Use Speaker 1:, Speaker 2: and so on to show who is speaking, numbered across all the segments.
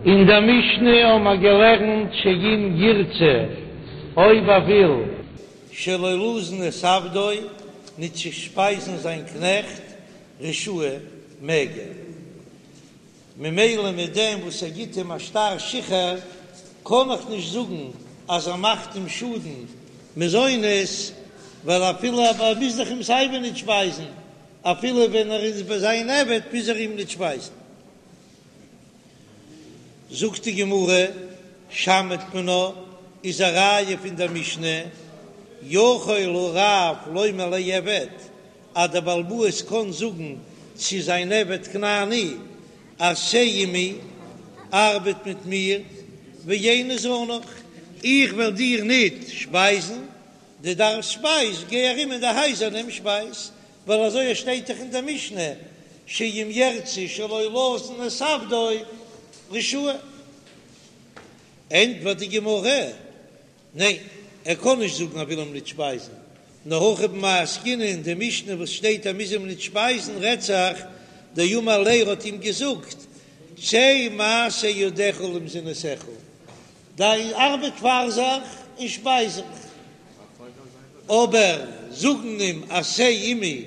Speaker 1: אין דער משנה האבן מיר געלערנט שאם ירצה, אויב ער וויל.
Speaker 2: שלא לזון את עבדו, ניט צו שפייזן זיין קנעכט, רשאי, מעג ער. ממילא מיט דעם וואס ער גיט אים א שטר שחרור, קען איך נישט זאגן אז ער מאכט אים שאדן מזונות, ווייל אפילו ער מוז דאך אים סייווי ניט שפייזן, אפילו ווען ער איז ביי זיין עבד מוז ער אים ניט שפייזן. זאגט די גמרא, שמעת מינה, איז א ראיה פון דער משנה, יכול הרב לומר לעבד, אז דער בעל הבית קען זאגן צו זיין עבד כנעני, עשה עמי, ארבעט מיט מיר, ואיני זנך, איך וועל דיר ניט שפייזן, דו דארפסט שפייז, גיי ארום אין די הייזער נעם שפייז, ווייל אזוי שטייט דאך אין דער משנה, שאם ירצה שלא לזון את עבדו רשאי. ענטפערט די גמרא, ניין, ער קען נישט זאגן ער וויל אים ניט שפייזן, נאר הכא במאי עסקינן אין די משנה וואס שטייט ער מוז אים ניט שפייזן רעדט זיך דאמר ליה ער האט אים געזאגט צא מעשה ידיך למזונותיך, דיי ארבעט פאר זיך און שפייז זיך, אבער זאגן אים עשה עמי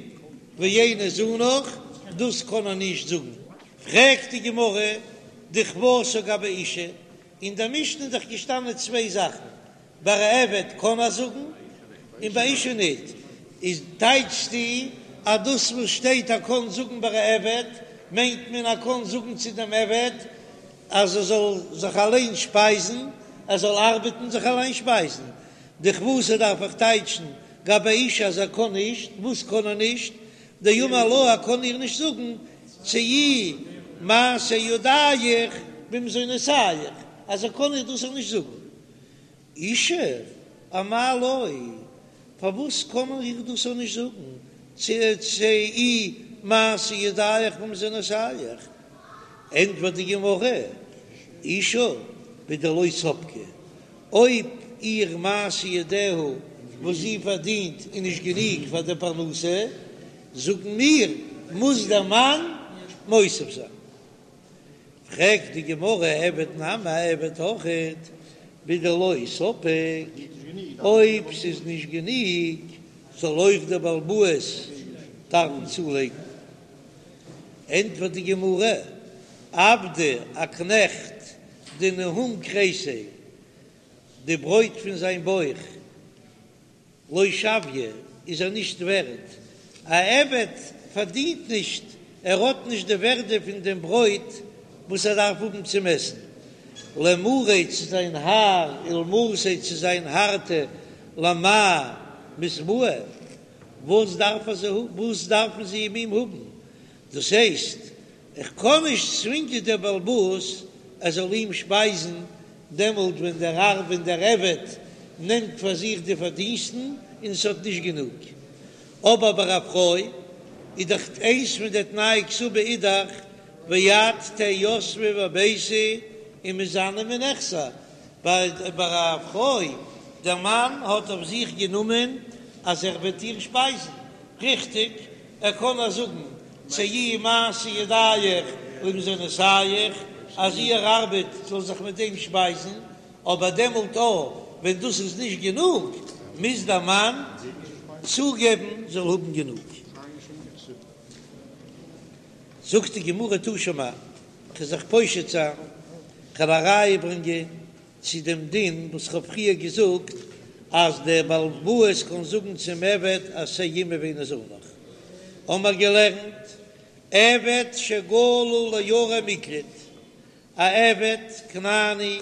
Speaker 2: ואיני זנך, דאס קען ער נישט זאגן. פרעגט די גמרא, דכוותה גבי אשה, אין דער משנה איז דאך געשטאנען צוויי זאכן, ביי א עבד קען ער זאגן און ביי אשה ניט, איז טייטשסטו אז דאס וואס שטייט ער קען זאגן ביי א עבד, מיינט מען ער קען זאגן צו דעם עבד אז ער זאל זיך אליין שפייזן, ער זאל ארבעטן זיך אליין שפייזן, דכוותה דארף איך טייטשן גבי אשה אז ער קען נישט, וואס קען ער נישט? דאמר לה ער קען איר נישט זאגן צאי מעשה ידיך במזונותיך, אז ער קען איר דאס אויך נישט זאגן. אשה אמאי לא, פארוואס קען ער איר דאס אויך נישט זאגן צאי מעשה ידיך במזונותיך? ענטפערט די גמרא, אשה בדלא ספקה, אויב איר מעשה ידיה וואס זי פארדינט איז נישט גענוג פאר די פרנסה, זאגן מיר, מוז דער מאן מוסיף זיין. פרעגט די גמרא, עבד נמי עבד אויכעט בדלא ספיק, אויב ס'איז נישט גענוג זאל אויך דער בעל הבית דארפן צולייגן. ענטפערט די גמרא, עבדא, א קנעכט, דניהום כריסיה, די ברויט פון זיין בויך, לא שוויא, איז ער נישט ווערד. א עבד פארדינט נישט, ער האט נישט די ווערדע פון דעם ברויט וואס ער דארף האבן צום עסן. למריה צו זיין האר, ולמרתיה צו זיין הארטע, למאי מתבעי, וואס דארף ער זיי האבן, וואס דארפן זיי אים האבן? דאס הייסט, איך קען נישט צווינגען דער בעל הבית ער זאל אים שפייזן דעמאלט ווען דער האר ווען דער עבד נעמט פאר זיך די פארדינסטן און עס האט נישט גענוג. אבער ביי א פרוי איז דאך איינס פון די תנאי כתובה איז דאך ואת תהא יתבא בביתי ומזנה מנכסי, ביי א פרוי דער מאן האט אויף זיך גענומען אז ער וועט איר שפייזן, ריכטיג? ער קען איר זאגן צאי מעשה ידיך למזונותיך אז איר ארבעט זאל זיך מיט דעם שפייזן, אבער דעמאלט אויך ווען דאס איז נישט גענוג מוז דער מאן צוגעבן זאל האבן גענוג. זאגט די גמרא תא שמע, כ'וועל זיך פושט זיין, כ'וועל א ראיה ברענגען צו דעם דין וואס כ'האב פריער געזאגט אז דער בעל הבית קען זאגן צום עבד עשה עמי ואיני זנך, האמער געלערנט עבד שגלה לערי מקלט, א עבד כנעני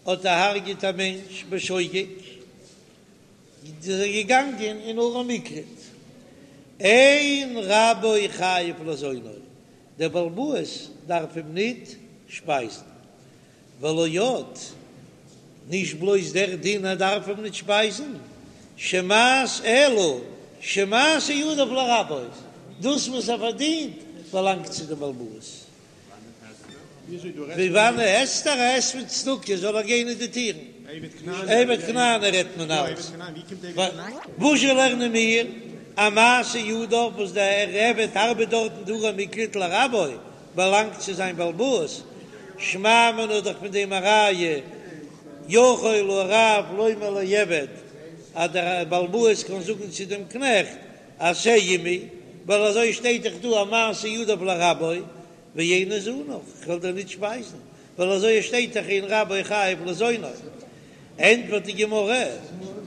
Speaker 2: האט דערהרגעט א מענטש בשוגג, איז ער געגאנגען אין ערי מקלט, אין רבו חייב לזונו, דער בעל הבית דארף אים ניט שפייזן. ולא עוד, נישט בלויז דער דין ער דארף אים ניט שפייזן, שמעש אלא שמעשה ידיו לרבו, דאס וואס ער פארדינט באלאנגט צו דעם בעל הבית. פון וואנען עסט ער? ער עסט פון צדקה, זאל ער גיין אין די טירן. עבד כנעני רעדט מען אלץ. וואזשע לערנען מיר? אז מעשה ידיו וואס דער עבד ארבעט דארט אין די ערי מקלט לרבו, באלאנגט צו זיין בעל הבית. שמע מינה דאך פון דעם א ראיה, יכול הרב לומר לעבד, אז דער בעל הבית קען זאגן צו דעם קנעכט, עשה עמי, ווייל אזוי שטייט דאך דא א מעשה ידיו לרבו, ואיני זנך, כ'וועל דיר ניט שפייזן, ווייל אזוי שטייט דאך אין רבו חייב לזונו. ענטפערט די גמרא,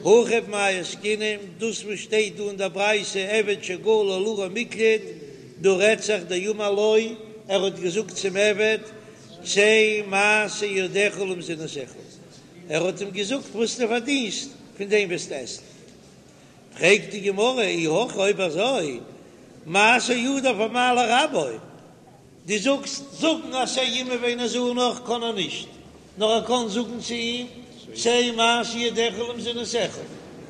Speaker 2: הכא במאי עסקינן, דאס וואס שטייט דא אין דער ברייתא עבד שגלה לערי מקלט, דא רעדט זיך דאמר לו, ער האט געזאגט צום עבד, צא מעשה ידיך למזונותיך, ער האט אים געזאגט וואס דו פארדינסט, פון דעם וועסטו עסן. פרעגט די גמרא, אי הכי אויב אזוי, מעשה ידיו אמאי לרבו, דו זאגסט זאגן עשה עמי ואיני זנך קען ער נישט, נאר ער קען זאגן צו אים צא מעשה ידיך למזונותיך,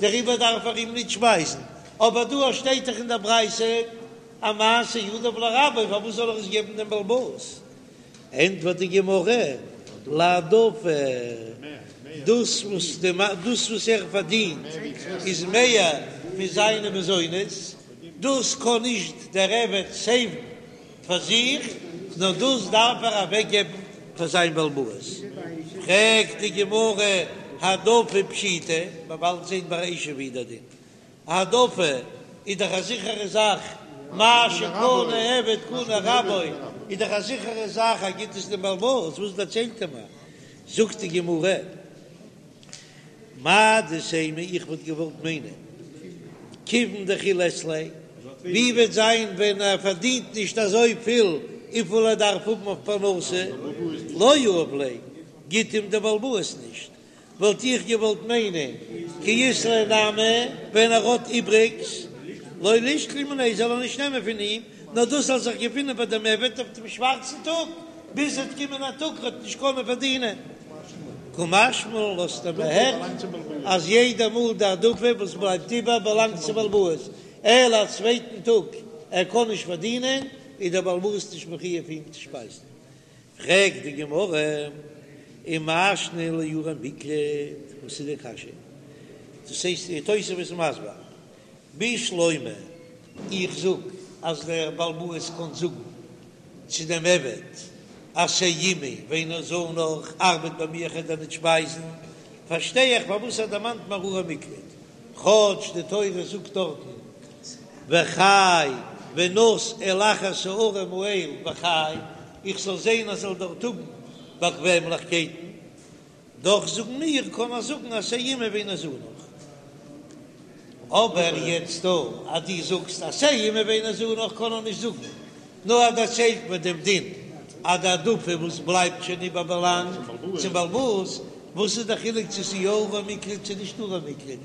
Speaker 2: דעריבער דארף ער אים נישט שפייזן, אבער דא שטייט דאך אין דער ברייתא אז מעשה ידיו לרבו, פארוואס זאל ער עס געבן דעם בעל הבית? ענטפערט די גמרא, להעדפה, דאס וואס דאס וואס ער פארדינט איז מער פון זיינע מזונות, דאס קען נישט דער עבד סעיוון פאר זיך, נאר דאס דארף ער אוועקגעבן פאר זיין בעל הבית. פרעגט די גמרא, העדפה פשיטא, מ'וועט באלד זען ביי אשה ווי דער דין, העדפה איז דאך א זיכערע זאך, מה שקנה עבד קנה רבו, איז דאך א זיכערע זאך אז גיט עס דעם בעל הבית, וואס דערציילט ער מיר? זאגט די גמרא, מהו דתימא איך וואלט געוואלט מיינען כיוון דכי לית ליה, ווי וועט זיין ווען ער פארדינט נישט אזוי פיל וויפיל ער דארף האבן אויף פרנסה, לא יהיב ליה, גיט אים דער בעל הבית נישט, וואלט איך געוואלט מיינען כי אית ליה נמי ווען ער האט איבריגס, לא לישקול מיניה זאל ער נישט נעמען פון אים, נאר דאס זאל זיך געפינען ביי דעם עבד אויף דעם שווארצן טאג, ביז עס וועט קומען א טאג ער וועט נישט קענען פארדינען. קא משמע לן לאזט ער מיר הערן אז יעדע מאל די העדפה וואס בלייבט איבער באלאנגט צום בעל הבית, אלא א צווייטן טאג ער קען נישט פארדינען איז דער בעל הבית נישט מחויב אים צו שפייזן. פרעגט די גמרא, ומאי שנא לערי מקלט, וואס איז די קשיא? דאס הייסט די תוספות איז מסביר, בשלמא, איך זאג אז דער בעל הבית קען זאגן צו דעם עבד עשה עמי ואיני זנך, ארבעט ביי מיר איך וועל דיר ניט שפייזן, פארשטיי איך פארוואס ער דערמאנט מיר ערי מקלט, כאטש די תורה זאגט דארטן וחי ונס אל אחת הערים האל וחי, איך זאל זען אז ער זאל דארט האבן באקוועמליכקייטן, דאך זאגן מיר קען ער זאגן עשה עמי ואיני זנך. אבער יעצט דא אז דו זאגסט עשה עמי ואיני זנך קען ער נישט זאגן, נאר ער דערציילט מיר דעם דין אז די העדפה וואס בלייבט שוין איבער באלאנגט צום בעל הבית, וואס איז די חילוק צו ס'איז יא ערי מקלט צו נישט ערי מקלט?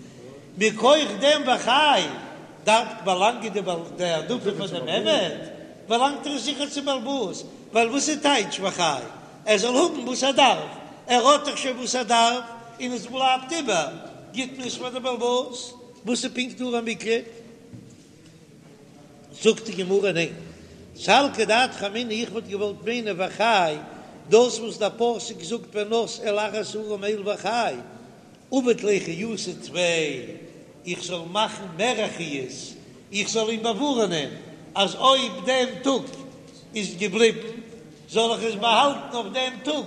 Speaker 2: מכח דעם וחי דארף באלאנגען די העדפה פאר דעם עבד, באלאנגט ער זיכער צום בעל הבית, ווייל וואס איז טייטש וחי? ער זאל האבן וואס ער דארף, ער האט דאך שוין וואס ער דארף, און עס בלייבט איבער, גיט מען עס פאר די בעל הבית, וואס איז פונקט ערי מקלט? זאגט די גמרא ניין, סלקא דעתך אמינא איך וואלט געוואלט מיינען וחי, דאס וואס דער פסוק זאגט ונס אל אחת הערים האל וחי, עביד ליה חיותא טפי, איך זאל מאכן מער א חיות, איך זאל אים באווארענען אז אויב דעם טאג איז געבליבן, זאל איך עס באהאלטן אויף דעם טאג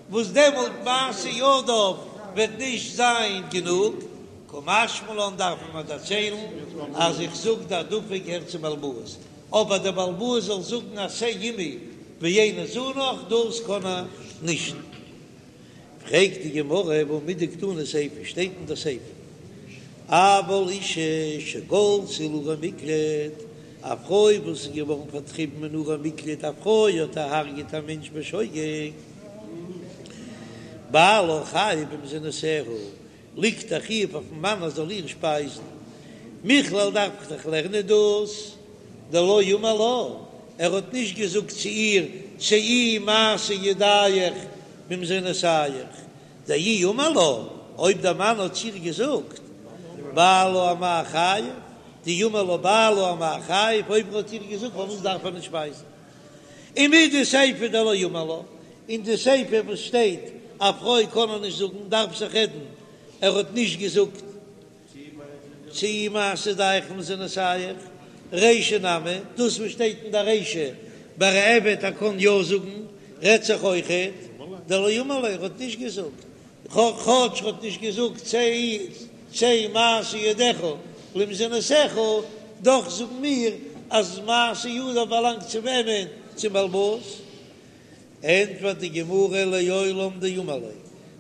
Speaker 2: וואס דעמאלט מעשה ידיו וועט נישט זיין גענוג, קא משמע לן דארף מען מיר דערציילן אז איך זאג די העדפה געהערט צום בעל הבית, אבער דער בעל הבית זאל זאגן עשה עמי ואיני זנך דאס קען ער נישט. פרעגט די גמרא והא מדקתני סיפא, שטייט אין די סיפא אבל אשה שגלתה לערי מקלט, א פרוי וואס איז געווארן פארטריבן אין ערי מקלט, א פרוי האט דערהרגעט א מענטש בשוגג, בעלה חייב במזונותיה, ליגט א חיוב אויפן מאן ער זאל איר שפייזן, מכלל דארף איך דאך לערנען דאס דלא אמר לה, ער האט נישט געזאגט צו איר צאי מעשה ידיך במזונותיך, דאי אמר לה, אויב דער מאן האט צו איר געזאגט בעלה אמאי חייב, דאי אמר לה בעלה אמאי חייב, אויב ער האט איר געזאגט פארוואס דארף ער נישט שפייזן? ומדסיפא דלא אמר לה, אין די סיפא וואס שטייט א פרוי קען ער נישט זאגן דארף זיך רעדן ער האט נישט געזאגט צאי מעשה ידיך במזונותיך, רישא נמי, דאס וואס שטייט אין די רישא ביי א עבד ער קען יא זאגן רעדט זיך אויכעט. דלא אמר ליה, ער האט נישט געזאגט, כאטש ער האט נישט געזאגט צא צא מעשה ידיך למזונותיך, דאך זאגן מיר אז מעשה ידיו באלאנגט צו וועמען? צום בעל הבית. ענטפערט די גמרא לעולם דאמר ליה,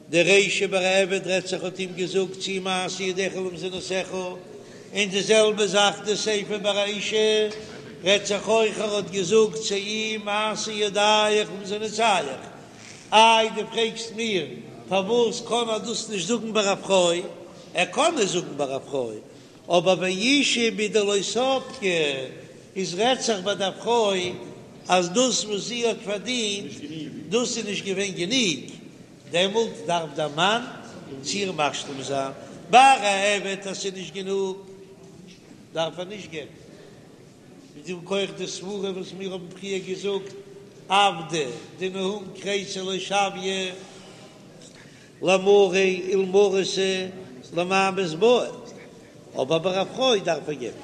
Speaker 2: די רישא ביי א עבד רעדט זיך האט אים געזאגט צאי מעשה ידיך למזונותיך, און די זעלבע זאך די סיפא ביי א אשה רעדט זיך אויך ער האט געזאגט צאי מעשה ידיך למזונותיך, איי דו פרעגסט מיר פארוואס קען ער דאס נישט זאגן ביי א פרוי, ער קען עס זאגן ביי א פרוי, אבער באשה בדלא ספקה איז רעדט זיך ביי דער פרוי אז דאס וואס זי האט פארדינט דאס איז נישט געווען גענוג, דעמאלט דארף דער מאן צו איר משלים זיין, ביי א עבד אז ס'איז נישט גענוג דארף ער נישט געבן, מיט דעם כח די סברה וואס מיר האבן פריער געזאגט, עבדא דנהום כריסיה לא שויא. למריה ולמרתא למאי מתבעי, אבער ביי א פרוי דארף ער געבן.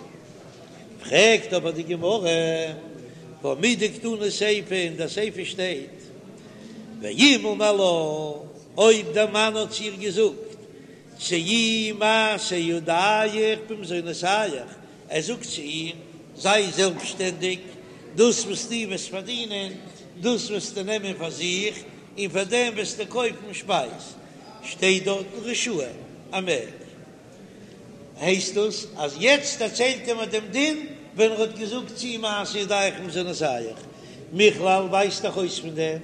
Speaker 2: פרעגט אבער די גמרא, והא מדקתני סיפא, אין דער סיפא שטייט, ואם אמר לה, אויב דער מאן האט צו איר געזאגט, צאי מעשה ידיך במזונותיך, ער זאגט צו איר, זיי זעלבסטשטענדיג, דאס וואס דו וועסט פארדינען, דאס וועסטו נעמען פאר זיך, און פאר דעם וועסטו קויפן שפייז. שטייט דארטן רשאי, ער מעג. הייסט דאס אז יעצט דערציילט ער מיר דעם דין ווען ער האט געזאגט צאי מעשה ידיך במזונותיך. מכלל ווייזט דאך אויס פון דעם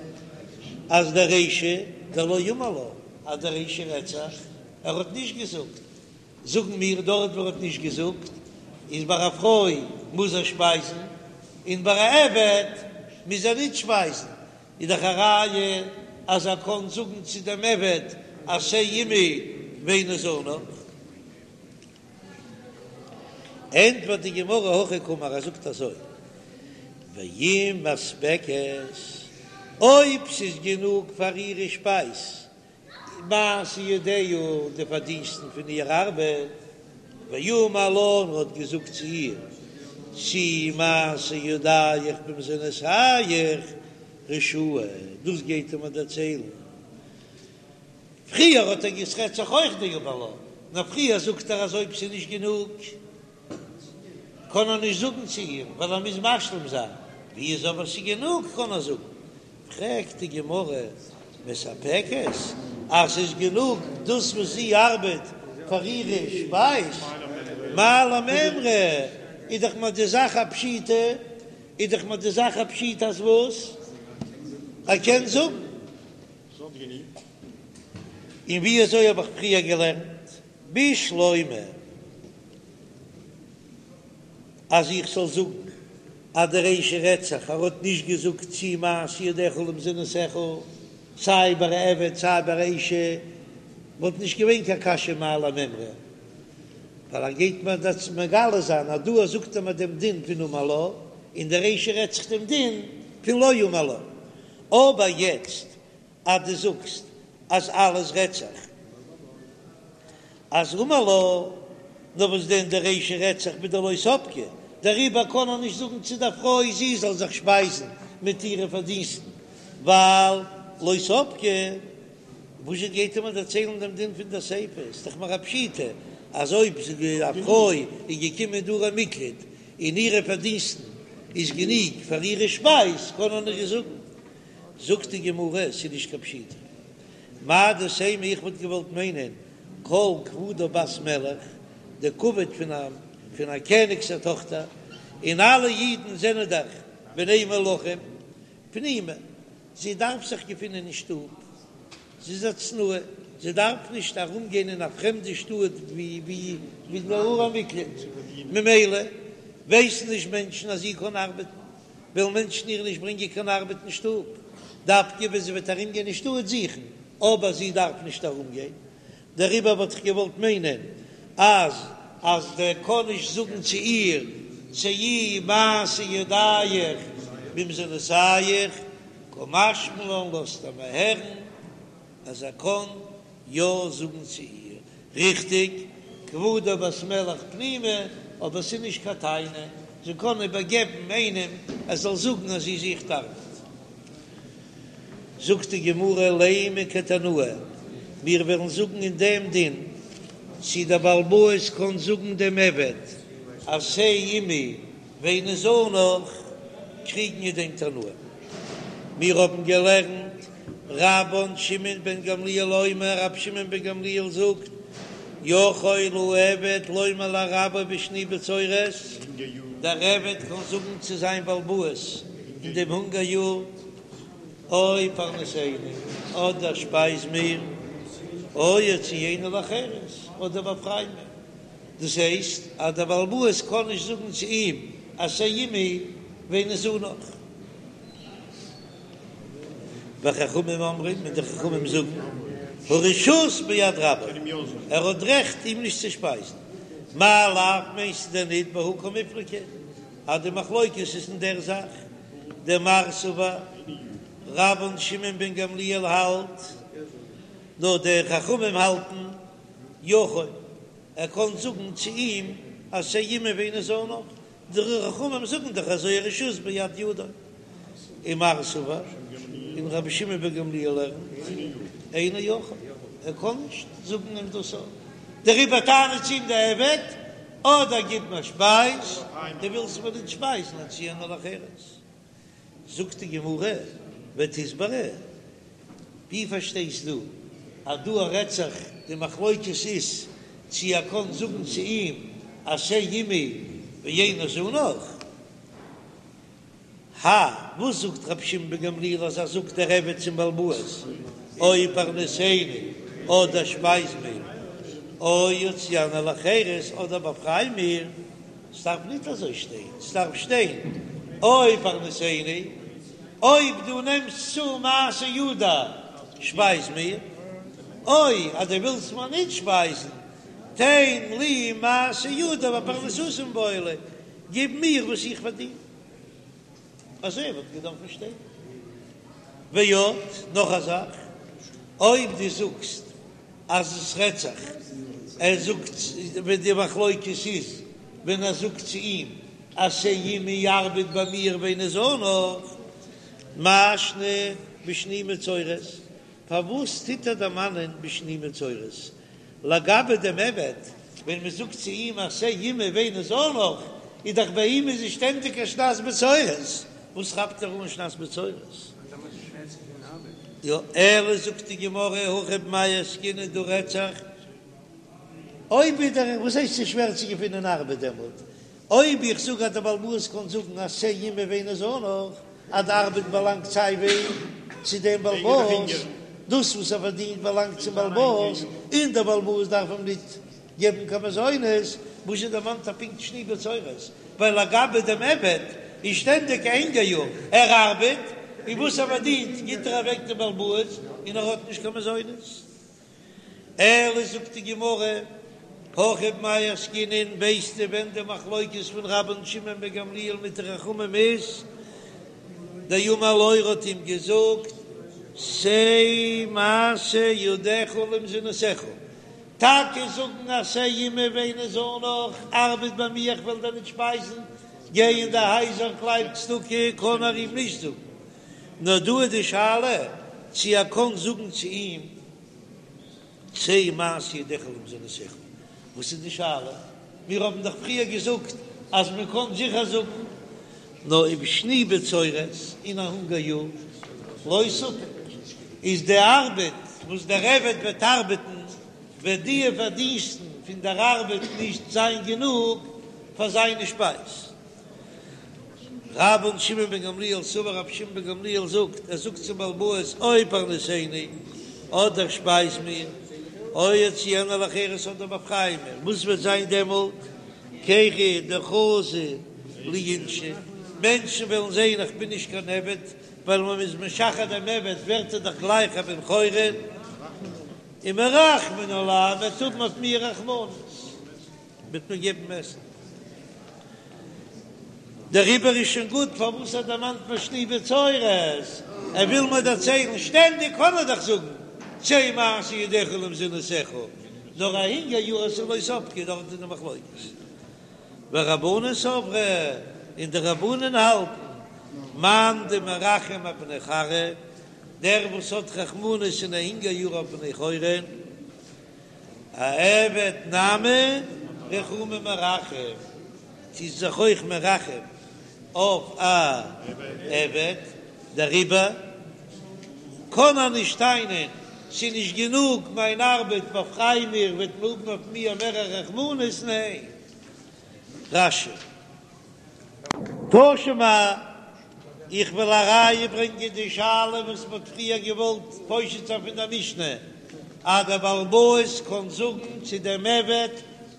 Speaker 2: אז דער רישא דלא אמר לה, אז דער רישא רעדט זיך, ער האט נישט געזאגט. זאגן מיר דארט וואו ער האט נישט געזאגט איז ביי א פרוי מוז ער שפייזן און ביי א עבד מוז ער ניט שפייזן, איז דאך א ראיה אז ער קען זאגן צו דעם עבד עשה עמי ואיני זנך. ענטפערט די גמרא הכי קאמר, ער זאגט אזוי, ואם מספקת, אויב ס'איז גענוג פאר אירע שפייז מעשה ידיה, די פארדינסטן פון איר ארבעט, ואמר לה, און ער האט געזאגט צו איר, צאי מעשה ידיך במזונותיך רשאי, דאס גייט ער מיר דערציילן. פריער האט ער געס רעדט זיך אויך דאמר לה, נאר פריער זאגט ער אז אויב ס'איז נישט גענוג קען ער נישט זאגן צו איר ווייל ער מוז משלים זיין, ווי איז אבער ס'איז גענוג קען ער זאגן. פרעגט די גמרא, מספקת, אז ס'איז גענוג דאס וואס זי ארבעט פאר אירע שפייז, מאי למימרא, איז דאך מיר די זאך א פשיטא, איז דאך מיר די זאך א פשיטא אז וואס? ער קען זאגן. און ווי אזוי האב איך פריער געלערנט? בשלמא אז איך זאל זאגן אז די רישא רעדט זיך ער האט נישט געזאגט צאי מעשה ידיך למזונותיך סיי ביי א עבד סיי ביי א אשה וואלט נישט געווען קיין קשיא מאי למימרא ווייל ער גייט מיר דאס מגלה זיין אז דא זאגט ער מיר דעם דין פון אמר לה און די רישא רעדט זיך דעם דין פון לא אמר לה אבער יעצט אז דו זאגסט אז אלעס רעדט זיך אז אמר לה, נאר וואס דען די רישא רעדט זיך בדלא ספקה, דעריבער קען ער נישט זאגן צו דער פרוי זי זאל זיך שפייזן מיט אירע פארדינסטן, ווייל לא ספקה. וואזשע גייט ער מיר דערציילן דעם דין פון דער סיפא? איז דאך מיר א פשיטא אז אויב א פרוי איז געקומען אין ערי מקלט און אירע פארדינסטן איז גענוג פאר אירע שפייז קען ער נישט זאגן. זאגט די גמרא, ס'איז נישט קיין פשיטא. מהו דתימא איך וואלט געוואלט מיינען כל כבודה בת מלך, די כבוד פון א פון א קעניג'ס א טאכטער, און אלע אידן זענען דאך בני מלכים, פנימה, זי דארף זיך געפינען אין שטוב, זי איז א צנועה, זי דארף נישט ארום גיין אין א פרעמדע שטאט ווי ווי ווי די ערי מקלט, ממילא ווייסן נישט מענטשן אז זי קען ארבעטן. וועלן מענטשן איר נישט ברענגען קיין ארבעט אין שטוב, דווקא ווען זי וועט ארומגיין אין שטאט זוכן, אבער זי דארף נישט ארומגיין, דעריבער וואלט איך געוואלט מיינען אז אז דער קען נישט זאגן צו איר צאי מעשה ידיך במזונותיך, קא משמע לן לאזט ער מיר הערן אז ער קען יא זאגן צו איר, ריכטיג, כבודה בת מלך פנימה, אבער ס'איז נישט קיין טענה, זי קען איבערגעבן איינעם ער זאל זאגן אז זי זוכט ארבעט. זאגט די גמרא לימא כתנאי, מיר וועלן זאגן אין דעם דין צי דער בעל הבית קען זאגן דעם עבד עשה עמי ואיני זנך, קריגן אין דעם תנאים. מיר האבן געלערנט רבן שמעון בן גמליאל אומר, רבי שמעון בן גמליאל זאגט, יכול העבד לומר לרבו בשני בצורת, דער עבד קען זאגן צו זיין בעל הבית אין דעם הונגער יאר, או פרנסני, אדער שפייז מיר, או הוציאני לחירות, אדער באפריי מיר. דאס הייסט אז דער בעל הבית קען נישט זאגן צו אים עשה עמי ואיני זנך. וחכמים אומרים, און די חכמים זאגן, הרשות ביד רבו, ער האט רעכט אים נישט צו שפייזן. מאי לאו מיינסטו דען ניט בהא קמיפלגי, אז די מחלוקת איז אין דער זאך, דמר סבר, רבן שמעון בן גמליאל האלט, נאר די חכמים האלטן, יכול, ער קען זאגן צו אים עשה עמי ואיני זנך, די חכמים זאגן דאך אזוי הרשות ביד ידו, ומר סבר, און רבי שמעון בן גמליאל לערנט, אינו יכול, ער קען נישט זאגן אים דאס אויך, דעריבער טענה'ט צו אים די עבד, אדער גיב מיר שפייז, דו ווילסט מיר נישט שפייזן, הוציאני לחירות. זאגט די גמרא, ותסברא, ווי פארשטייסט דו אז דא רעדט זיך די מחלוקת איז צו ער קען זאגן צו אים עשה עמי ואיני זנך? האי, וואס זאגט רבי שמעון בן גמליאל אז ער זאגט דער עבד צום בעל הבית או פרנסני אדער שפייז מיר או הוציאני לחירות אדער באפריי מיר, ס'דארף ניט אזוי שטיין, ס'דארף שטיין או פרנסני, אויב דו נעמסט צו מעשה ידי שפייז מיר, או אז דו ווילסט מיר ניט שפייזן, תן לי מעשה ידי ופרנסתי מיבעי ליה, גיב מיר וואס איך פארדין. אזוי וואלט געדארפן שטיין. ועוד, נאך א זאך, אויב דו זאגסט אז עס רעדט זיך, ער זאגט ווען די מחלוקת איז ווען ער זאגט צו אים עשה עמי ארבעט ביי מיר ואיני זנך, מאי שנא בשני בצורת, פארוואס טוט ער דערמאנען בשני בצורת? לגבי דעם עבד, ווען מען זאגט צו אים עשה עמי ואיני זנך, איז דאך ביי אים איז עס שטענדיג א שנת בצורת, וואס כאפט ער אן שנת בצורת? יא, אלא זאגט די גמרא, הכא במאי עסקינן דא רעדט זיך, אויב איז דער, וואס הייסט ס'איז שווער צו געפינען ארבעט דעמאלט? אויב איך זאג אז דער בעל הבית קען זאגן עשה עמי ואיני זנך, אז די ארבעט באלאנגט סיי ווי צו דעם בעל הבית, דאס וואס ער פארדינט באלאנגט צום בעל הבית, און דער בעל הבית דארף אים ניט געבן קיין מזונות, וואס זשע דערמאנט ער פונקט שני בצורת? ווייל לגבי דעם עבד איז שטענדיג א הונגער יאר, ער ארבעט, און וואס ער פארדינט גיט ער אוועק דעם בעל הבית, און ער האט נישט קיין מזונות. אלא זאגט די גמרא, הכא במאי עסקינן, ווייסטו ווען די מחלוקת פון רבן שמעון בן גמליאל מיט די חכמים איז? דאמר לו ער האט אים געזאגט, צא מעשה ידיך למזונותיך, טאקע זאגן עשה עמי ואיני זנך, ארבעט ביי מיר איך וועל דיר נישט שפייזן, גיי אין די הייזער קלייב צדקה, קען ער אים נישט זאגן, נאר דא איז די שאלה צו ער קען זאגן צו אים צא מעשה ידיך למזונותיך, וואס איז די שאלה? מיר האבן דאך פריער געזאגט אז מען קען זיכער זאגן, נאר ובשני בצורת אין א הונגער יאר לא ספק, איז די ארבעט וואס דער עבד וועט ארבעטן וועט די פארדינסטן פון דער ארבעט נישט זיין גענוג פאר זיינע שפייז. רבן שמעון בן גמליאל סבר רבי שמעון בן גמליאל זאגט, ער זאגט צום בעל הבית או פרנסני, אדער שפייז מיר, או הוציאני לחירות אדער באפריי מיר, וואס וועט זיין דעמאלט? כי דחזו לי אינשי, מענטשן וועלן זען איך בין נישט קיין עבד, ווייל ווען מ'איז משחרר דעם עבד ווערט ער דאך גלייך א בן חורין, ומרחמין עלי, מ'וועט האבן אויף מיר רחמנות. וועט מיר געבן עסן. דעריבער איז שוין גוט פארוואס ער דערמאנט מיר שני בצורת, ער וויל מיר דערציילן, שטענדיג קען ער דאך זאגן צא מעשה ידיך למזונותיך, נאר א הונגער יאר אז ס'איז לא ספקא דארט איז די מחלוקת. ורבנן סברי, און די רבנן האלטן, מאן דמרחם אבני כרעא. דער וואס האט רחמנות אין א הונגער יאר אויף בני חורין, אעבד נמי רחומי מרחם, טוט זיך אויך מרחם אויף א עבד, דעריבער קען ער נישט טענה'ן ס'איז נישט גענוג מיין ארבעט באפריי מיר וועט מען האבן אויף מיר מער רחמנות, ניין. רש"י. תא שמע, איך וועל א ראיה ברענגען די שאלה וואס מ'האט פריער געוואלט פושט זיין פון דער משנה, אז דער בעל הבית קען זאגן צו דעם עבד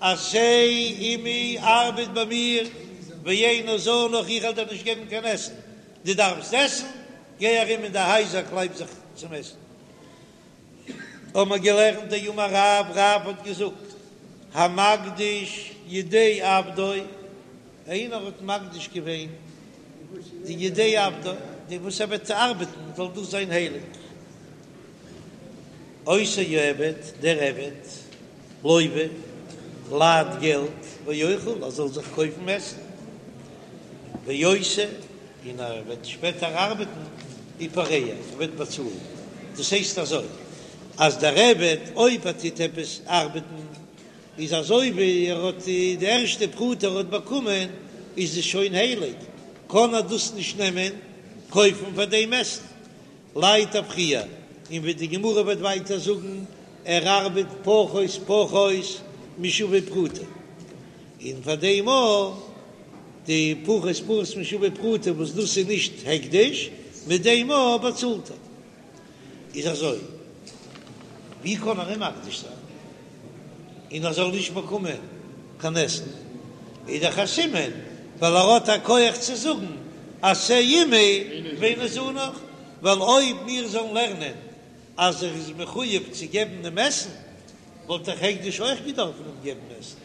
Speaker 2: עשה עמי ארבעט ביי מיר, ואיני זנך איך וועל דיר נישט געבן קיין עסן, דו דארפסט עסן, גיי ארום אין די הייזער קלייב זיך צום עסן. האבן מיר געלערנט דאמר רב, רב האט געזאגט, המקדיש ידי עבדו, איינער האט מקדיש געווען די ידי עבדו, די וואס ער וועט ארבעטן זאל דאס זיין הייליג, אותו העבד, דער עבד, לוה, לייט געלט, ואוכל, ער זאל זיך קויפן עסן, ועושה, און ער וועט שפעטער ארבעטן ופורע, ער וועט באצאלן. דאס הייסט אזוי, אז דער עבד אויב ער טוט עפעס ארבעטן, איז אזוי ווי ער האט די ערשטע פרוטה ער האט באקומען, איז עס שוין הייליג, קען ער דאס נישט נעמען קויפן פאר דעם עסן. לייט ער פריער, און ווי די גמרא וועט ווייטער זאגן, ער ארבעט פחות פחות משווה פרוטה, און פאר דעם אויך די פחות פחות משווה פרוטה וואס דאס איז נישט הקדש, מיט דעם אויך באצאלט ער. איז אזוי, ווי קען ער אים מקדיש זיין און ער זאל נישט באקומען קיין עסן? איז דאך א סימן ווייל ער האט א כח צו זאגן עשה עמי ואיני זנך, ווייל אויב מיר זאלן לערנען אז ער איז מחויב צו געבן דעם עסן, וואלט דאך הקדש אויך געדארפן אים געבן עסן.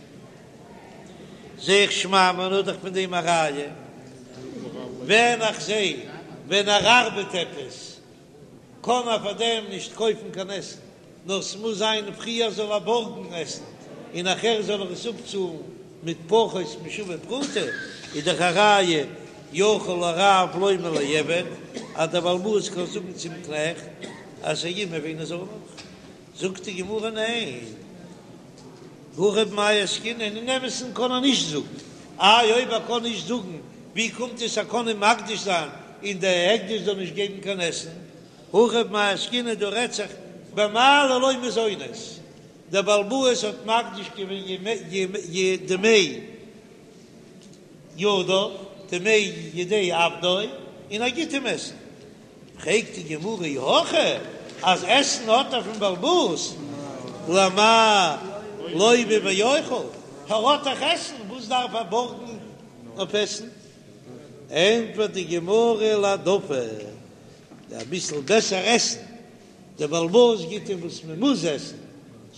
Speaker 2: זע איך שמע מינה דאך פון דעם א ראיה, ווען איך זע ווען ער ארבעט עפעס קען ער פאר דעם נישט קויפן קיין עסן, נאר ס'מוז זיין פריער זאל ער בארגן עסן און נאכער זאל ער עס אפצאלן מיט פחות משווה פרוטה, איז דאך א ראיה יכול הרב לומר לעבד אז דער בעל הבית קען זאגן צום קנעכט עשה עמי ואיני זנך, זאגט די גמרא ניין, הכא במאי עסקינן, אין אמת'ן קען ער נישט זאגן, איי אויב ער קען נישט זאגן ווי קומט עס ער קען אים מקדיש זיין און דער הקדש זאל נישט געבן קיין עסן, הכא במאי עסקינן דא רעדט זיך במעלה לו מזונות, דער בעל הבית האט מקדיש געווען דמי ידיו, דמי ידי עבדו, און ער גיט אים עסן. פרעגט די גמרא אי הכי אז עסן האט ער פון בעל הבית, למאי לוה ואוכל, ער האט דאך עסן, וואס דארף ער בארגן אויף עסן? ענטפערט די גמרא להעדפה, אביסל בעסער עסן, דער בעל הבית גיט אים וואס מען מוז עסן,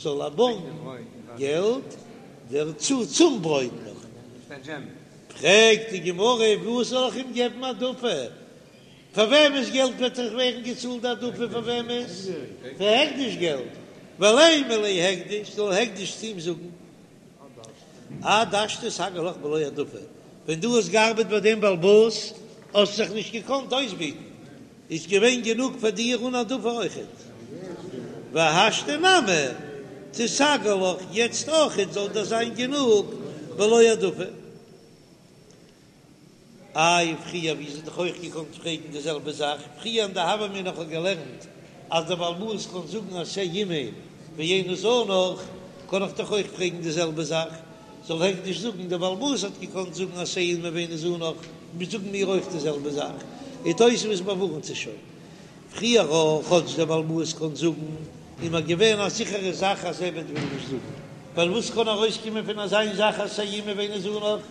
Speaker 2: זאל ער בארגן געלט דערצו צום ברויט נאך. פרעגט די גמרא וואס זאל איך אים געבן העדפה? פאר וועמענס געלט וועט דאך ווערן געצאלט די העדפה? פאר וועמענס? פאר הקדש געלט. ולימא ליה הקדש, זאל הקדש צו אים זאגן, עד השתא סגי לך בלא העדפה, ווען דו האסט געארבעט ביי דעם בעל הבית האסט זיך נישט געקאנט אויסביטן, איז געווען גענוג פאר דיר אן העדפה אויכעט. והשתא נמי תיסגי לך, יעצט אויכעט זאל דיר זיין גענוג בלא העדפה. איי פריער ווי זי דאך אויך געקאנט פרעגן די זעלבע זאך פריער אין די הוה אמינא איך האב געלערנט אז דער בעל הבית קען זאגן עשה עמי ואיני זנך קען איך דאך אויך פרעגן די זעלבע זאך זאל הקדש זאגן דער בעל הבית האט געקאנט זאגן עשה עמי ואיני זנך מיר זאגן מיר אויך די זעלבע זאך און תוספות באווארנט עס שוין פריער אויך, כאטש דער בעל הבית קען זאגן, איז מיר געווען א זיכערע זאך אז עבד וויל נישט זאגן, ווייל וואס קען ארויסקומען פון אזא זאך עשה עמי ואיני זנך,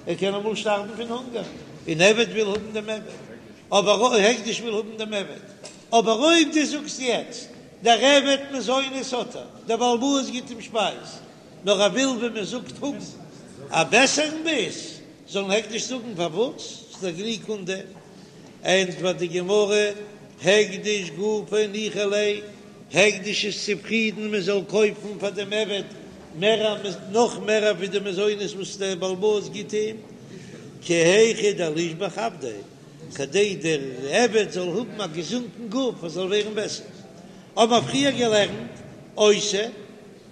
Speaker 2: ער קען אמאל שטארבן פון הונגער, און עבד וויל האבן דעם עבד, אבער הקדש וויל האבן דעם עבד, אבער אויב דו זאגסט יעצט, דער עבד מזונות האט ער, דער בעל הבית גיט אים שפייז, נאר ער וויל ווי מען זאגט האבן א בעסערן ביס, זאל הקדש זאגן פארוואס ס'איז דאך גענוג אן דעם, ענטפערט די גמרא, הקדש גופיה ניחא ליה, הקדש איז צופרידן מען זאל קויפן פאר דעם עבד מער נאך מער ווי די מזונות וואס דער בעל הבית גיט אים, כי היכי דלישבח עבדיה. כדי דער עבד זאל האבן א געזונטן גוף, ער זאל ווערן בעסער. האבן מיר פריער געלערנט, עושה,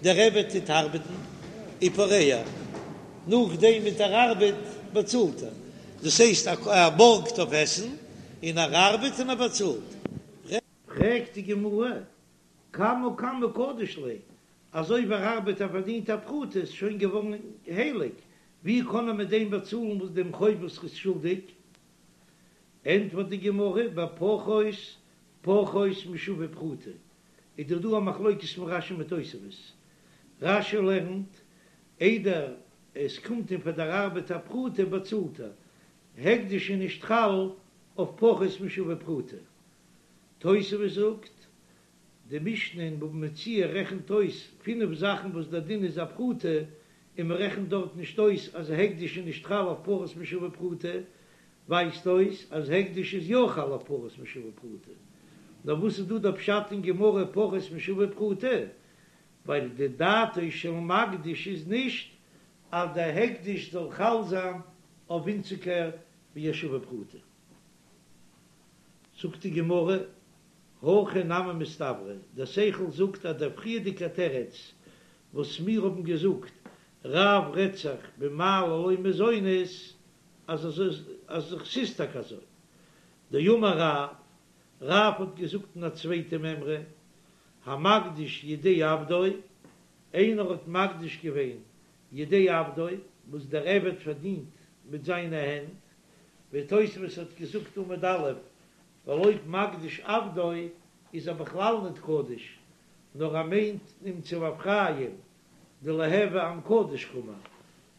Speaker 2: דער עבד טוט ארבעטן, ופורע, נאכדעם מיט דער ארבעט באצאלט ער, דאס הייסט ער בארגט אויף עסן, און ער ארבעט און ער באצאלט. פרעגט די גמרא, קמא קמא קדיש ליה, אז אויב ער ארבעט ער פארדינט א פרוטה איז שוין געווארן הייליג, ווי קען ער מיט דעם באצאלן וואס דעם חוב וואס ער איז שולדיג? ענטפערט די גמרא, בפחות פחות משווה פרוטה, איז דאך דא א מחלוקת פון רש"י מיט תוספות, רש"י לערנט, איידער עס קומט אים פאר דער ארבעט א פרוטה באצאלט ער, הקדש איז נישט חל אויף פחות משווה פרוטה. תוספות זאגט, די משנה אין בבא מציעא רעכנט אויס פינף זאכן וואס דער דין איז א פרוטה, און מען רעכנט דארט נישט אויס אז הקדש איז נישט חל אויף פחות משווה פרוטה, ווייזט אויס אז הקדש איז יא חל אויף פחות משווה פרוטה. נאר וואס איז דא דער פשט אין גמרא פחות משווה פרוטה? ווייל די דעתו של מקדיש איז נישט אז דער הקדש זאל חל זיין אויף ווינציגער ווי א שווה פרוטה. זאגט די גמרא, הכי נמי מסתברא, דער שכל זאגט אז דער פריערדיגער תירוץ וואס מיר האבן געזאגט, רב רעדט זיך במעלה לו מזונות, אז אז ס'איז טאקע אזוי. דאמר רב, רב האט געזאגט אין א צווייטע מימרא, המקדיש ידי עבדו, איינער האט מקדיש געווען ידי עבדו, וואס דער עבד פארדינט מיט זיינע הענט, ווי תוספות האט געזאגט עמוד א', ווייל אויב מקדיש עבדו איז ער בכלל ניט קדוש, נאר ער מיינט אים צו באפרייען, דליהוי עם קדוש קאמר,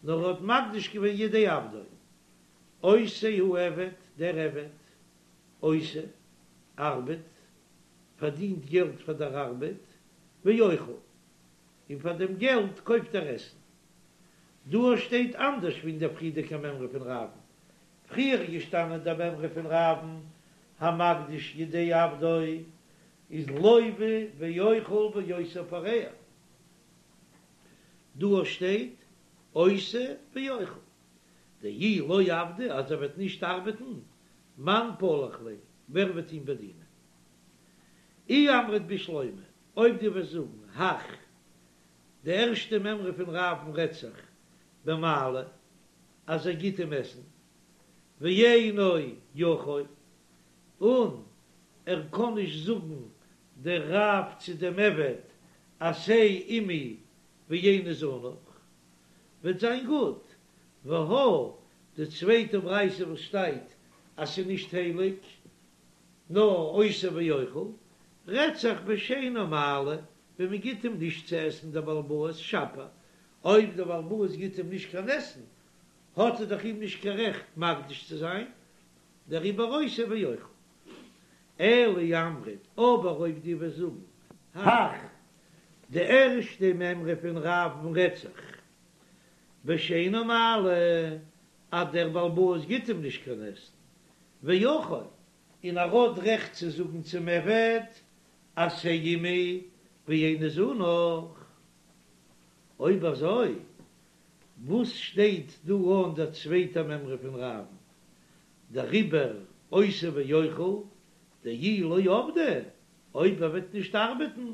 Speaker 2: נאר ער האט מקדיש געווען ידי עבדו. אותו העבד, דער עבד, עושה, ארבעט, פארדינט געלט פאר דער ארבעט, ואוכל, און פאר דעם געלט קויפט ער עסן. דא שטייט אנדערש ווי אין דער פריערדיגער מימרא פון רב'ן. פריער איז געשטאנען דער מימרא פון רב'ן, המקדיש ידי עבדו איז לוה ואוכל ואותו פורע. דא שטייט עושה ואוכל. דאי לא עבדי אז ער וועט נישט ארבעטן, מאן פלח ליה, ווער וועט אים באדינען? אי אמרת בשלמא, אויב דו וועסט זאגן הך, די ערשטע מימרא פון רב'ן רעדט זיך במעלה אז ער גיט אים עסן, ואינו יכול, און ער קען נישט זאגן דער רב צו דעם עבד עשה עמי ואיני זנך, וועט זיין גוט, והא די צווייטע ברייתא וואס שטייט אז ס'איז נישט הייליג, נאר עושה ואוכל, רעדט זיך בשאינו מעלה, ווען מען גיט אים נישט צו עסן דער בעל הבית שפיר, אויב דער בעל הבית גיט אים נישט קיין עסן, האט ער דאך אים נישט קיין רעכט מקדיש צו זיין, דעריבער עושה ואוכל. אלא אי אמרת, אבער אויב דו וועסט זאגן, הך, די ערשטע מימרא פון רב'ן רעדט זיך בשאינו מעלה, אז דער בעל הבית גיט אים נישט קיין עסן, ויכול, און ער האט רעכט צו זאגן צום עבד, עשה עמי ואיני זנך. אויב אזוי, וואס שטייט דא אן דער צווייטער מימרא פון רב'ן? דעריבער עושה ואוכל, דאי לא עבדי, אויב ער וועט נישט ארבעטן,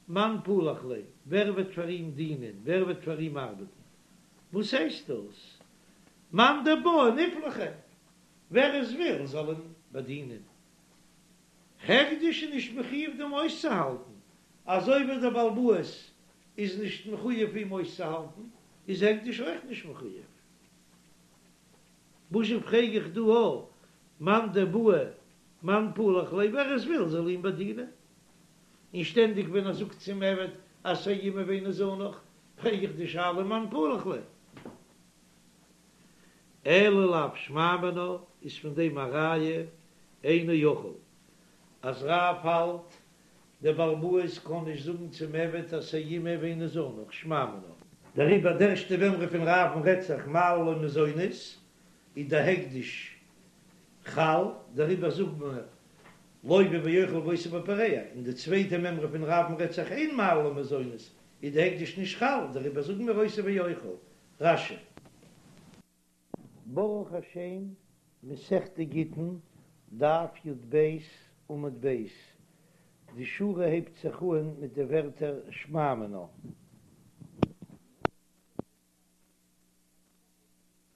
Speaker 2: מאן פלח ליה, ווער וועט פאר אים דינען, ווער וועט פאר אים ארבעטן? וואס הייסט דאס? מאן דבעי נפלחיה, ווער עס וויל זאל אים באדינען. הקדש איז נישט מחויב דעם אויסצוהאלטן, אזוי ווי דער בעל הבית איז נישט מחויב אים אויסצוהאלטן, איז הקדש אויך נישט מחויב. וואזשע פרעג איך דא א מאן דבעי מאן פלח ליה, ווער עס וויל זאל אים באדינען. און שטענדיג ווען ער זאגט צום עבד עשה עמי ואיני זנך, פרעג איך די שאלה מאן פלח ליה. אלא לאו שמע מינה איז פון דעם א ראיה אינו יכול אז רב האלט דער בעל הבית קען נישט זאגן צום עבד עשה עמי ואיני זנך שמע מינה. דעריבער די ערשטע מימרא פון רב'ן רעדט זיך מעלה לו מזונות איז דער הקדש חל, דעריבער זאגט מען לוה ואוכל ואותו ופורע, און די צווייטע מימרא פון רב'ן רעדט זיך אין מעלה לו מזונות איז די הקדש נישט חל, דעריבער זאגן מיר עושה ואוכל. רש"י. ברוך השם, מסכת גיטין,
Speaker 1: דף י"ב עמוד ב', די שורה הייבט זיך אן מיט די ווערטער שמע מינה.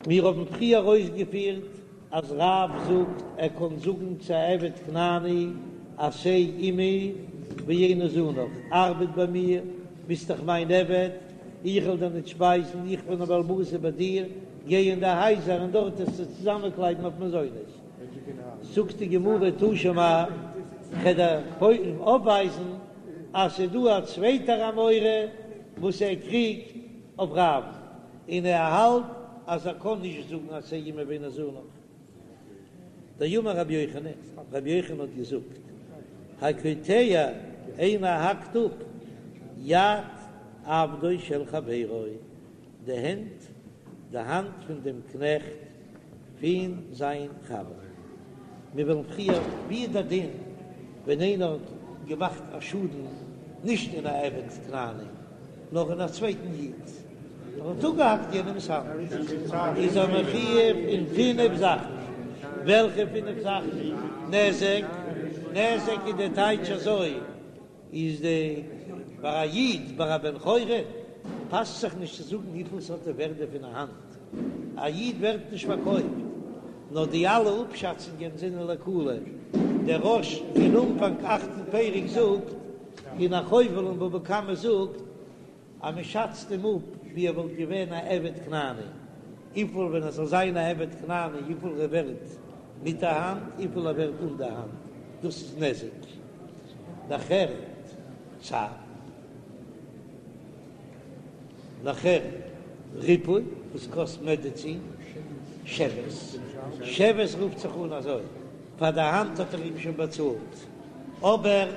Speaker 1: מיר האבן פריער אויסגעפירט אז רב זאגט ער קען זאגן צו א עבד כנעני עשה עמי ואיני זנך, ארבעט ביי מיר, ביסט דאך מיין עבד, איך וועל דיר ניט שפייזן, איך בין א בעל הבית איבער דיר, גיי אין די הייזער און דארט וועסטו צוזאמענקלייבן אויף מזונות. זאגט די גמרא תא שמע, כ'וועל דיר אויפווייזן אז ס'איז דא א צווייטער אמורא וואס ער קריגט אויף רב, און ער האלט אז ער קען נישט זאגן עשה עמי ואיני זנך. דאמר רבי יוחנן, רבי יוחנן האט געזאגט, הקוטע איינער האקט אפ יד עבדו של חברו, די הענט, די האנט פון דעם קנעכט פון זיין חבר. מיר וועלן פריער, ווי איז דער דין ווען איינער האט געמאכט א שאדן נישט אין א עבד כנעני נאר אין א צווייטן איד, ער האט אפגעהאקט יענעמס האנט, איז ער מחויב אין פינף זאכן, וועלכע פינף זאכן? נזק, נזק איז די טייטש אזוי, איז די ביי א איד ביי א בן חורין פאסט זיך נישט צו זאגן וויפיל ס'האט די ווערדע פון א האנט, א איד ווערט נישט פארקויפט, נאר די אלע אפשאצונגען זענען לקולא, דער רא"ש אין אנפאנג אכטן פרק זאגט, און החובל אין בבא קמא זאגט, אז מען שאצט אים אפ ווי ער וואלט געווען א עבד כנעני, וויפיל ווען ער זאל זיין א עבד כנעני וויפיל ער ווערט מיט א האנט, וויפיל ער ווערט אן די האנט, דאס איז נזק. נאכער צער. נאכער ריפוי וואס קאסט מעדעצין, שבת. שבת רופט זיך אן אזוי, פאר די האנט האט ער אים שוין באצאלט, אבער.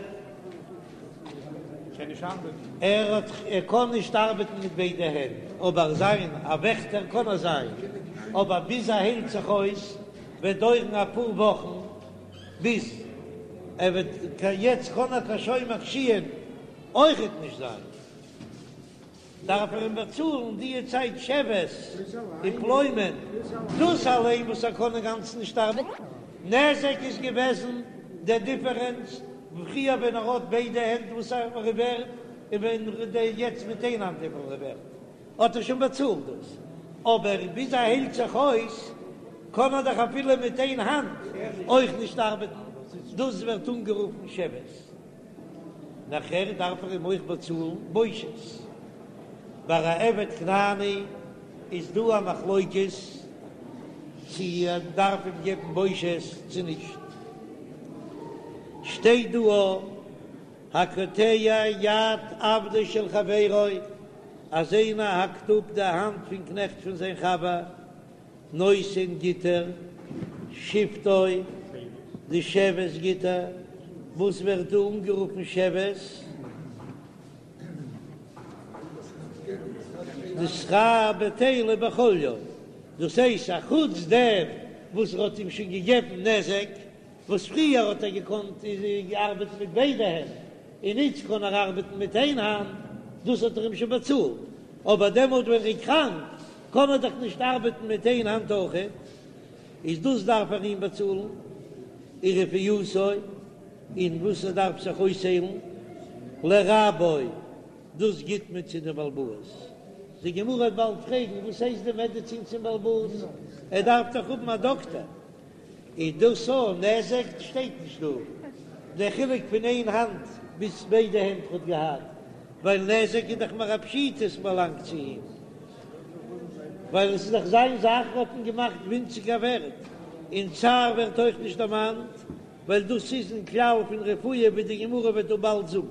Speaker 1: ער האט ער קען נישט ארבעטן מיט ביידע הענט, אבער זיין א וועכטער קען ער זיין, אבער ביז ער היילט זיך אויס וועט דויערן אפאר וואכן ביז ער וועט יעצט קען ער קיין שומר קישואין אויכעט נישט זיין. דארף ער אים באצאלן די צייט שבת ופלוימען, דאס אליין וואס ער קען אינגאנצן נישט ארבעטן, נזק איז געוועזן דער דיפערענץ פריער ווען ער האט ביידע הענט וואס ער איז ווערט, און ווען יעצט מיט איין האנט וויפיל ער איז ווערט, האט ער שוין באצאלט דאס, אבער ביז ער היילט זיך אויס קען ער דאך אפילו מיט איין האנט אויך נישט ארבעטן, דאס ווערט אנגערופן שבת. נאכער דארף ער אים אויך באצאלן בושת. ביי א עבד כנעני איז דא א מחלוקת צו ער דארף אים געבן בושת צו נישט. שטייט דא הקוטע יד עבדו של חברו אז איינער האקט אפ די האנט פון קנעכט פון זיין חבר, נותן גיט ער שבתו, די שבת גיט ער, וואס ווערט דא אנגערופן שבת? די שכר בטלה בחליו, דאס הייסט א חוץ דעם וואס ער האט אים שוין געגעבן נזק, וואס פריער האט ער געקאנט ארבעטן מיט ביידע הענט, און איצט קען ער ארבעטן מיט איין האנט, דאס האט ער אים שוין באצאלט, אבער דעמאלט ווען ער איז קראנק קען ער דאך נישט ארבעטן מיט איין האנט אויכעט, איז דאס דארף ער אים באצאלן, ורפואתו, און וואס ער דארף זיך אויסהיילן, לרבו, דאס גיט מען צו די בעל הבית. די גמרא וועט באלד פרעגן, וואס הייסט די מעדעצין צום בעל הבית? ער דארף דאך האבן א דאקטער. איז דאס א נזק? שטייט נישט דא דער חילוק פון איין האנט ביז ביידע הענט האט געהאט, ווייל נזק איז דאך מער א פשיטא עס באלאנגט צו אים, ווייל עס איז דאך זיין זאך האט אים געמאכט ווינציגער ווערט, און צער ווערט אויך נישט דערמאנט, ווייל דאס איז אין כלל פון רפואה ווי די גמרא וועט דא באלד זאגן.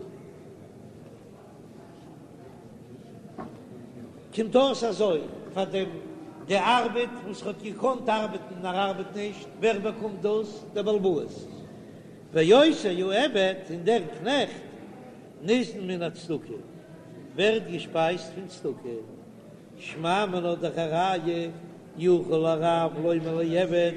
Speaker 1: קומט אויס אזוי, פאר דעם די ארבעט וואס ער האט געקאנט ארבעטן און ער ארבעט נישט, ווער באקומט דאס? דער בעל הבית. ואותו העבד, און דער קנעכט, ניזון מן הצדקה, ווערט געשפייזט פון צדקה. שמע מינה דאך א ראיה, יכול הרב לומר לעבד,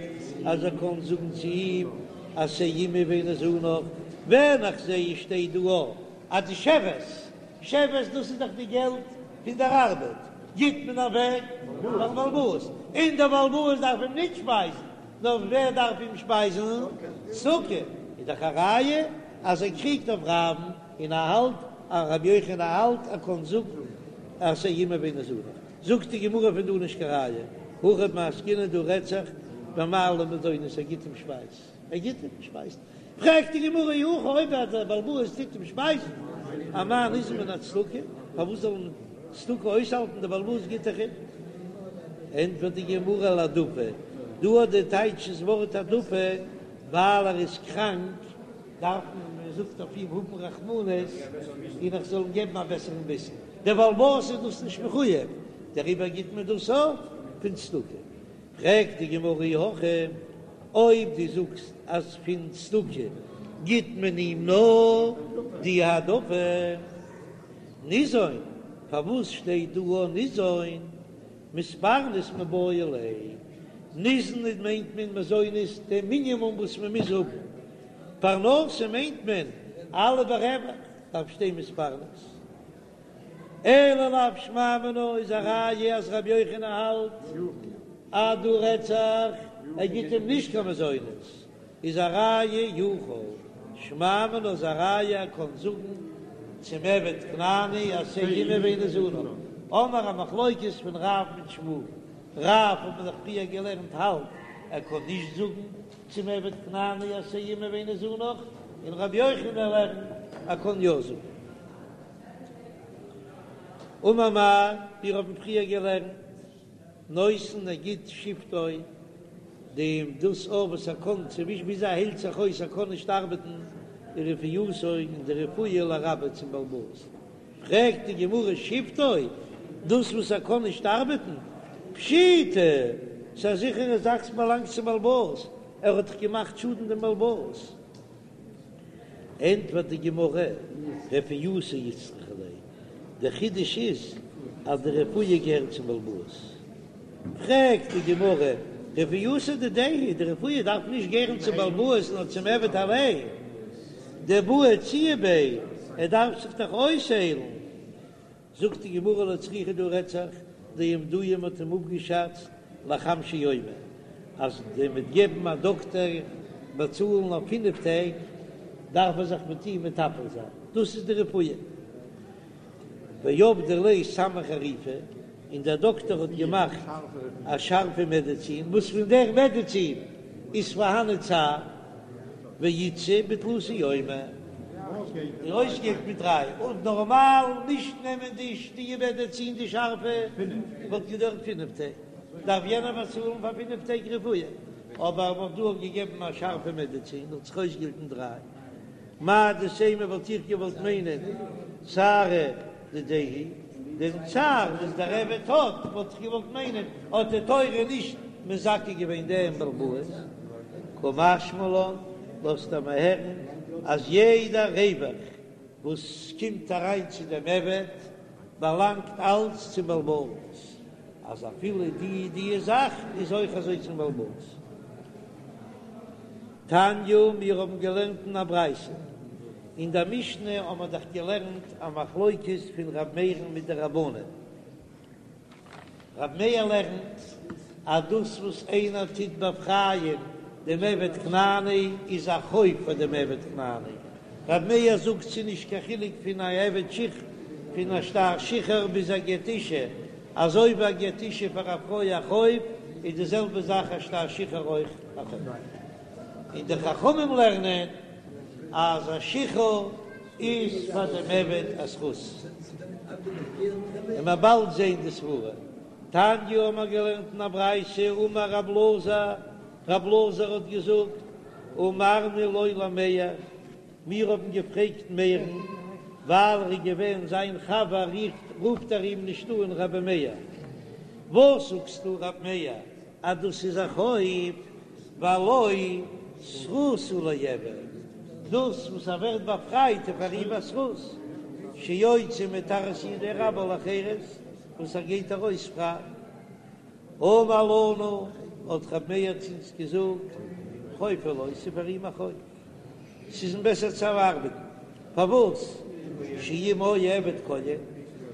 Speaker 1: אז ער קען זאגן צו אים, עשה עמי ואיני זנך, ווען איך זע עס שטייט דא אז די שבת, שבת דאס איז דאך די געלט פון דער ארבעט, גיט מען אוועק פארן בעל הבית, און דער בעל הבית דארף אים נישט שפייזן. נאר ווער דארף אים שפייזן? צדקה, איז דאך א ראיה אז ער קריגט אויף רב'ן און ער האלט אז רבי יוחנן האלט ער קען זאגן עשה עמי ואיני זנך. זאגט די גמרא פון דא נישט קיין ראיה, הכא במאי עסקינן דא רעדט זיך במעלה מזונות ער גיט אים שפייז, ער גיט אים שפייז, פרעגט די גמרא אי הכי אויב דער בעל הבית טוט אים שפייזן, אמאי ניזון מן הצדקה, פארוואס זאל אים צדקה אויסהאלטן, דער בעל הבית גיט דאך אים? ענטפערט די גמרא להעדפה, דא האט די טייטש דאס ווארט העדפה ווייל ער איז קראנק דארף מען, מען זאגט אויף אים האבן רחמנות און איך זאל אים געבן א בעסערן ביסן, דער בעל הבית איז דאס נישט מחויב, דעריבער גיט מען דאס אויף פון צדקה. פרעגט די גמרא אי הכי, אויב דו זאגסט אז פון צדקה גיט מען אים נאר די העדפה, ניזון, פארוואס שטייט דא א ניזון? מתפרנס מיבעי ליה, ניזון מיינט מען מזונות די מינימום וואס מען מוז האבן, פרנסה מיינט מען אלע ברווח, דארף שטיין מתפרנס. אלא לאו שמע מינה איז א ראיה אז רבי יוחנן האלט אז דא רעדט זיך ער גיט אים נישט קיין מזונות איז א ראיה יכול שמע מינה איז א ראיה ער קען זאגן צום עבד כנעני עשה עמי ואיני זנך האמיר א מחלוקת פון רב מיט שמואל רב האט מען דאך פריער געלערנט האלט ער קען נישט זאגן צום עבד כנעני עשה עמי ואיני זנך און רבי יוחנן לערנט ער קען יא זאגן. אמר מר, מיר האבן פריער געלערנט, נותן ער גיט שבתו, דעם דאס אויף וואס ער קען צווישן ביז ער היילט זיך אויס ער קען נישט ארבעטן, ורפואתו און די רפואה לרבו צום בעל הבית. פרעגט די גמרא שבתו, דאס וואס ער קען נישט ארבעטן, פשיטא, ס'איז א זיכערע זאך ס'באלאנגט צום בעל הבית, ער האט דאך געמאכט שאדן דעם בעל הבית. ענטפערט די גמרא, רפואתו איצטריכא ליה, דער חידוש איז אז די רפואה געהערט צום בעל הבית. פרעגט די גמרא, רפואתו דידיה היא, די רפואה דארף נישט געהערן צום בעל הבית נאר צום עבד אליין, דבעי איעצויי ביה, ער דארף זיך דאך אויסהיילן. זאגט די גמרא לא צריכא דא רעדט זיך דאמדוהו מ'האט אים אפגעשאצט לחמשא יומי אז די מיט געבן א דאקטער באצאלן אויף פינף טעג דארף ער זיך מיט אים מטפל זיין דאס איז די רפואה ועבדו ליה סמא חריפא און דער דאקטער האט געמאכט א שארפע מעדעצין וואס פון דער מעדעצין איז פארהאן צער. ואיתסי בתלתא יומי, און אויסגעהיילט מיט דריי, און נארמאל נישט נעמען די די מעדעצין די שארפע וואלט געדויערט פינף טעג, דארף יענער באצאלן פאר פינף טעג רפואה, אבער מ'האט דא געגעבן א שארפע מעדעצין האט זיך אויסגעהיילט אין דריי. מהו דתימא וואלט איך געוואלט מיינען צערא דידיה הוא, דעם צער וואס דער עבד האט, וואלט איך געוואלט מיינען האט די תורה נישט מזכה געווען דעם בעל הבית, קא משמע לן, לאזט ער מיר הערן אז יעדע רווח וואס קומט אריין צו דעם עבד באלאנגט אלץ צום בעל הבית, אז אפילו די די זאך איז אויך אזוי צום בעל הבית. תניא, מיר האבן געלערנט אין א ברייתא, אין דער משנה האבן מיר דאך געלערנט א מחלוקת פון ר' מאיר'ן מיט די רבנן. ר' מאיר לערנט אז דאס וואס איינער טוט באפרייען דעם עבד כנעני איז א חוב פאר דעם עבד כנעני. ר' מאיר זאגט ס'איז נישט קיין חילוק פון א עבד שחור פון א שטר שחרור ביז א גט אישה, אזוי ווי א גט אישה פאר א פרוי א חוב, איז די זעלבע זאך א שטר שחרור אויך א חוב. און די חכמים לערנען אז א שחרור איז פאר דעם עבד א זכות. און מ'וועט באלד זען די סברה. תניא האבן מיר געלערנט אין א ברייתא, אמר רב אלעזר, רב אלעזר האט געזאגט, אמרנו לו למאיר, מיר האבן געפרעגט מאיר'ן, ווייל ער איז געווען זיין חבר רופט ער אים נישט אן רבי מאיר. וואס זאגסטו רב מאיר אז דאס איז א חוב, והלא זכות הוא לעבד, דאס וואס ער ווערט באפרייט איז פאר אים א זכות, שיוצא מתחת ידי רבו לחירות, וואס ער גייט ארויס פריי. אמר לנו, האט רב מאיר צו אונז געזאגט, חוב הוא לו, ס'איז פאר אים א חוב. ס'איז אים בעסער צו ארבעטן. פארוואס? שאם היה עבד כהן,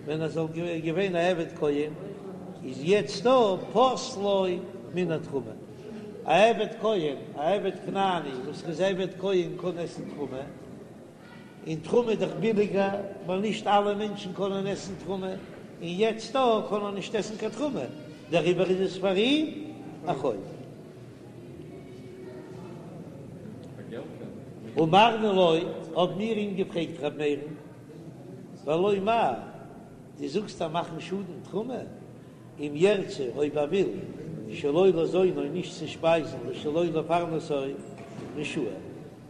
Speaker 1: ווען ער זאל געווען א עבד כהן, איז יעצט דא פוסלו מן התרומה. א עבד כהן, א עבד כנעני וואס איז עבד כהן קען עסן תרומה, און תרומה איז דאך ביליגער ווייל נישט אלע מענטשן קענען עסן תרומה, און יעצט דא קען ער נישט עסן קיין תרומה, דעריבער איז עס פאר אים א חוב. אמרנו לו, האבן מיר אים געפרעגט ר' מאיר'ן, והלא מהו, דו זאגסט אז מאכן שאדן תרומה, אם ירצה אויב ער וויל, שלא לזונו נישט צו שפייזן ושלא לפרנסו רשאי,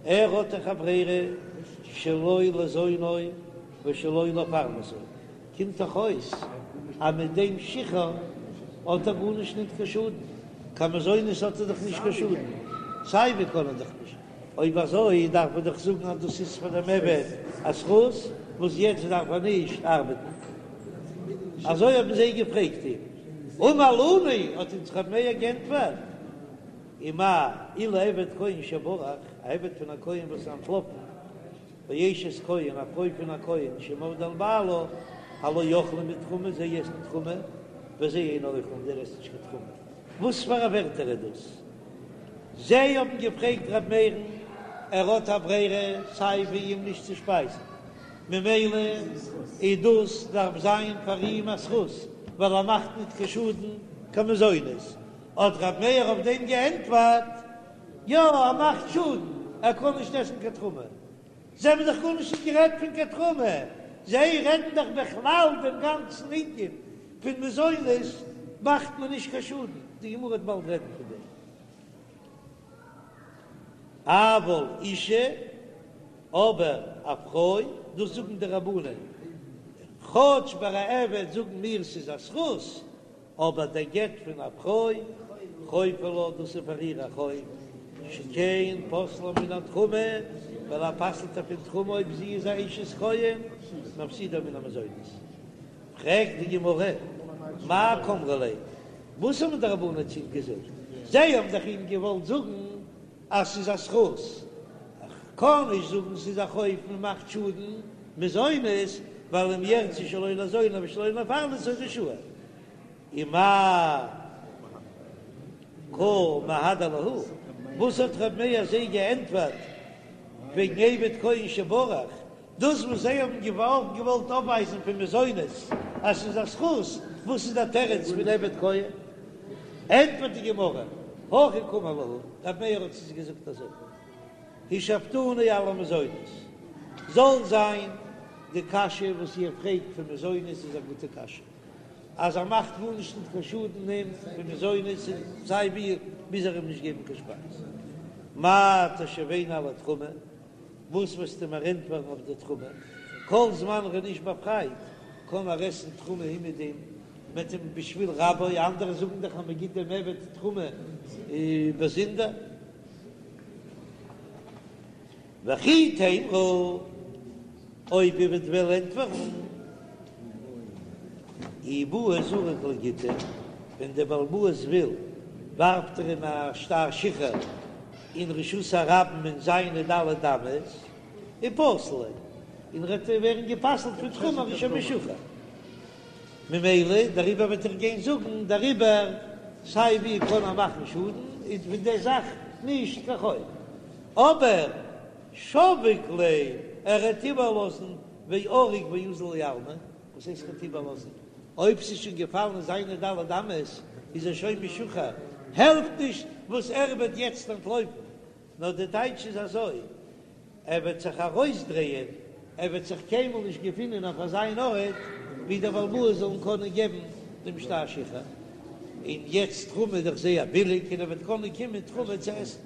Speaker 1: ער האט דאך א ברירה שלא לזונו ושלא לפרנסו, קומט דאך אויס אז מיט דעם שחרור האט ער גארנישט ניט קיין שאדן, קיין מזונות האט ער דאך נישט קיין שאדן, סיי ווי קען ער דאך נישט, אויב אזוי דארף מען דאך זאגן אז דאס איז פאר דעם עבד א זכות וואס יעצט דארף ער נישט ארבעטן. אזוי האבן זיי געפרעגט אים. אמר לנו, האט אונז רבי מאיר גענטפערט, ומאי אילו עבד כהן שברח, א עבד פון א כהן וואס איז אנטלאפן, ואשת כהן, א פרוי פון א כהן, שמרדה על בעלה, הלא אוכלים בתרומה, זיי עסן תרומה, וזה אינו אוכל, און דער עסט נישט קיין תרומה. וואס פאר א ווערטער איז דאס? זיי האבן געפרעגט ר' מאיר'ן, ער האט א ברירה סיי ווי אים נישט צו שפייזן, ממילא איז דאס דארף זיין פאר אים א זכות, ווייל ער מאכט ניט קיין שאדן קיין מזונות. האט ר' מאיר אויף דעם געענטפערט, יא, ער מאכט שאדן, ער קען נישט עסן קיין תרומה. זיי האבן דאך גארנישט נישט גערעדט פון קיין תרומה, זיי רעדן דאך בכלל דעם גאנצן ענין פון מזונות מאכט מען נישט קיין שאדן, די גמרא וועט באלד רעדן פון דעם. אבל אישה, אבער א פרוי, דאס זאגן די רבנן, כאטש ביי א עבד זאגן מיר ס'איז א זכות, אבער דער גט פון א פרוי, חוב הוא לה, דאס איז פאר איר א חוב, שכן פוסלה מן התרומה, ווייל ער פסל'ט איר פון תרומה אויב זי איז א אשת כהן, מפסידה מן המזונות. פרעגט די גמרא, מאי קאמרי ליה, וואס האבן די רבנן צו אים געזאגט? זיי האבן דאך אים געוואלט זאגן אז ס'איז א זכות, איך קען נישט זאגן ס'איז א חוב, מען מאכט שאדן מזונות, ווייל אם ירצה שלא לזונו ושלא לפרנסו רשאי. ומאי קא מהדר להו, וואס האט ר' מאיר זיי געענטפערט וועגן עבד כהן שברח? דאס וואס זיי האבן געוואלט געוואלט אויפווייזן פון מזונות אז ס'איז א זכות, וואס איז דער תירוץ פון עבד כהן? ענטפערט די גמרא, הכי קאמר להו, ר' מאיר האט צו זיי געזאגט אזוי, השיבתוני על המזונות, זאל זיין די קשיא וואס איר פרעגט פון מזונות איז א גוטע קשיא, אז ער מאכט גארנישט ניט קיין שאדן אים פון מזונות און סיי ווי מוז ער אים נישט געבן קיין שפייז, מאי תשיבני על התרומה, וואס וועסטו מיר ענטפערן אויף די תרומה? כל זמן ער איז נישט באפרייט קען ער עסן תרומה אומעדום מ'עט אים בשביל רבו, אנדערע זאגן דאך אז מען גיט דעם עבד תרומה באזונדער. וכי תימרו, אויב איר וועט וועלן ענטפערן, אי בעי זריק ליה גיטא, ווען דער בעל הבית וויל ווארפט ער אים א שטר שחרור אין רשות הרבים אין זיינע ד' אמות, ופסיל ליה, און ער וועט ווערן גע'פסל'ט פון תרומה ער איז שוין משוחרר. ממילא דעריבער וועט ער גיין זאגן דעריבער סיי ווי קען ער מאכן שאדן איז פון די זאך נישט קיין חוב. אבער שביק ליה ער וועט איבערלאזן ועריק ואזיל לעלמא, וואס הייסט ער וועט איבערלאזן? אויב ס'איז שוין געפאלן אין זיינע ד' אמות איז ער שוין משוחרר, העלפט נישט וואס ער וועט יעצט אנטלויפן, נאר די טייטש איז אזוי, ער וועט זיך ארויסדרייען, ער וועט זיך קיינמאל נישט געפינען אויף אזיין ארט ווי דער בעל הבית זאל אים קענען געבן דעם שטר שחרור, און יעצט תרומה איז דאך זייער ביליג און ער וועט קענען קומען תרומה צו עסן.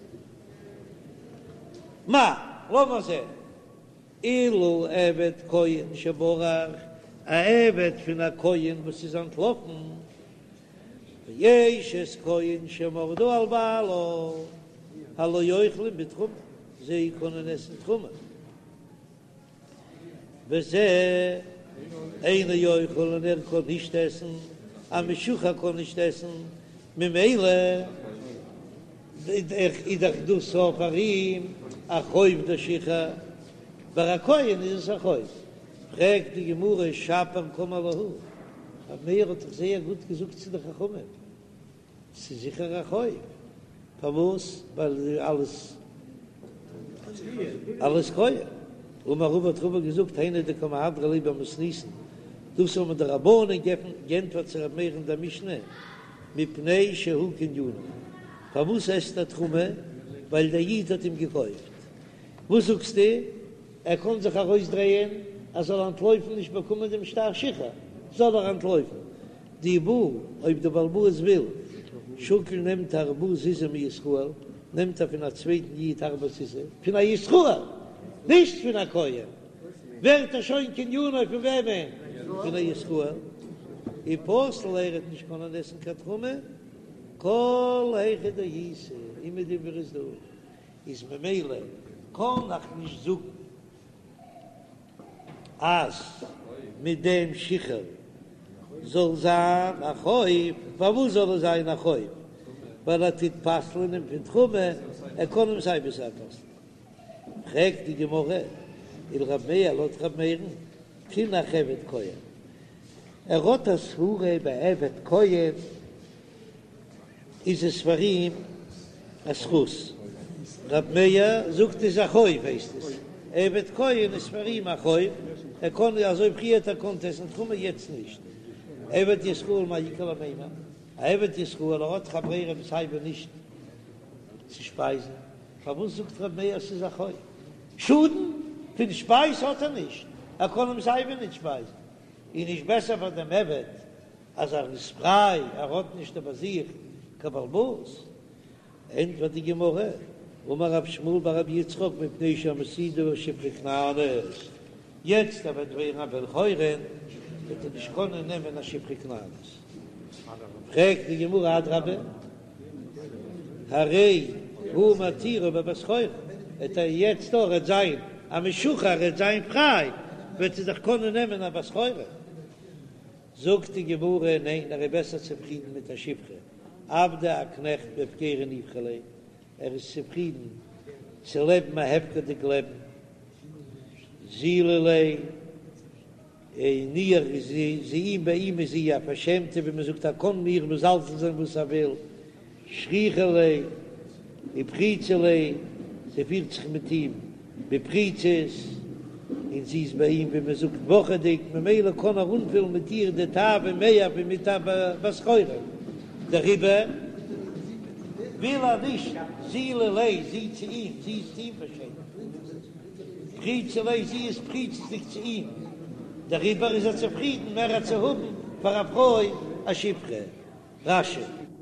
Speaker 1: מהו, לאמיר זען, אילו עבד כהן שברח, א עבד פון א כהן וואס איז אנטלאפן, ואשת כהן שמרדה על בעלה, הלא אוכלים בתרומה, זיי קענען עסן תרומה, וזה אינו אוכל און ער קען נישט עסן, א משוחרר קען נישט עסן, ממילא איז דאך דאס אויף פאר אים א חוב דער שחרור, ביי א כהן איז עס א חוב. פרעגט די גמרא שפיר קאמר להו, רב מאיר האט דאך זייער גוט געזאגט צו די חכמים, ס'איז זיכער א חוב. פארוואס? ווייל אלס אלס כהן. אמר רבא האט רבא געזאגט היינו דקא מהדרי ליה במתניתין, דאס האבן די רבנן גענטפערט צו ר' מאיר אין דער משנה, מפני שהוא קנינו, פארוואס עסט ער תרומה? ווייל דער איד האט אים געקויפט. וואס זאגסטו? ער קען זיך ארויסדרייען ער זאל אנטלויפן נישט באקומען דעם שטר שחרור, זאל ער אנטלויפן. דאי בעי, אויב דער בעל הבית וויל, שקיל נעמט ארבעה זוזי מישראל, נעמט ער פון א צווייטן איד ארבעה זוזי, פון א ישראל, נישט פון א כהן, ווערט ער שוין קנינו פון וועמען? פון א ישראל, ופסיל ער וועט נישט קענען עסן קיין תרומה, כל היכא דאיתא, אומעדום וואו ער איז דא, איז ממילא קען איך נישט זאגן אז מיט דעם שחרור זאל זיין א חוב, פארוואס זאל עס זיין א חוב? ווייל ער טוט פסל'ען אים פון תרומה, ער קען אים סיי ווי סיי פסל'ען. פרעגט די גמרא, ולרב מאיר לויט רב מאיר'ן, תינח עבד כהן, ער האט א סברה ביי עבד כהן, איז עס פאר אים א זכות. רב מאיר זאגט איז א חוב הייסט עס, עבד כהן איז פאר אים א חוב, ער קען אזוי פריער האט ער געקאנט עסן תרומה יעצט נישט. עבד ישראל מאי איכא למימר, א עבד ישראל ער האט דאך א ברירה סיי ווי נישט צו שפייזן, פארוואס זאגט רב מאיר ס'איז א חוב? שאדן פון שפייז האט ער נישט, ער קען אים סיי ווי נישט שפייזן, איז נישט בעסער פאר דעם עבד אז ער איז פריי, ער האט נישט איבער זיך קיין בעל הבית. ענטפערט די גמרא, אמר רב שמואל בר רבי יצחק מפני שמסעידו שפחה כנענית, יעצט ער וועט ווערן א בן חורין וועט ער נישט קענען נעמען א שפחה כנענית. פרעגט די גמרא אדרבה, הרי הוא מתירו בבת חורין, וועט ער יעצט ער וועט זיין א משוחרר, ער וועט זיין פריי, וועט ער דאך קענען נעמען א בת חורין. זאגט די גמרא, ניין, ער איז בעסער צופרידן מיט א שפחה, עבדא א קנעכט בהפקירא ניחא ליה, ער איז צופרידן צו לעבן א הפקר'דיג לעבן, זילא ליה, און איר איז זי אים ביי אים איז זי א פארשעמטע, ווי מען זאגט ער קען איר מזלזל זיין וואס ער וויל, שכיחא ליה ופריצא ליה, זי פירט זיך מיט אים בפריצות, און זי איז ביי אים ווי מען זאגט וואכעדיג, ממילא קען ער אנפילן מיט איר די תאווה מער ווי מיט א בת חורין, דעריבער וויל ער נישט זילא ליה, זי צו אים, זי איז צו אים פארשעמט, פריצא ליה, זי איז פריצות'דיג צו אים, דעריבער איז ער צופרידן מער צו האבן פאר א פרוי א שפחה. רש"י.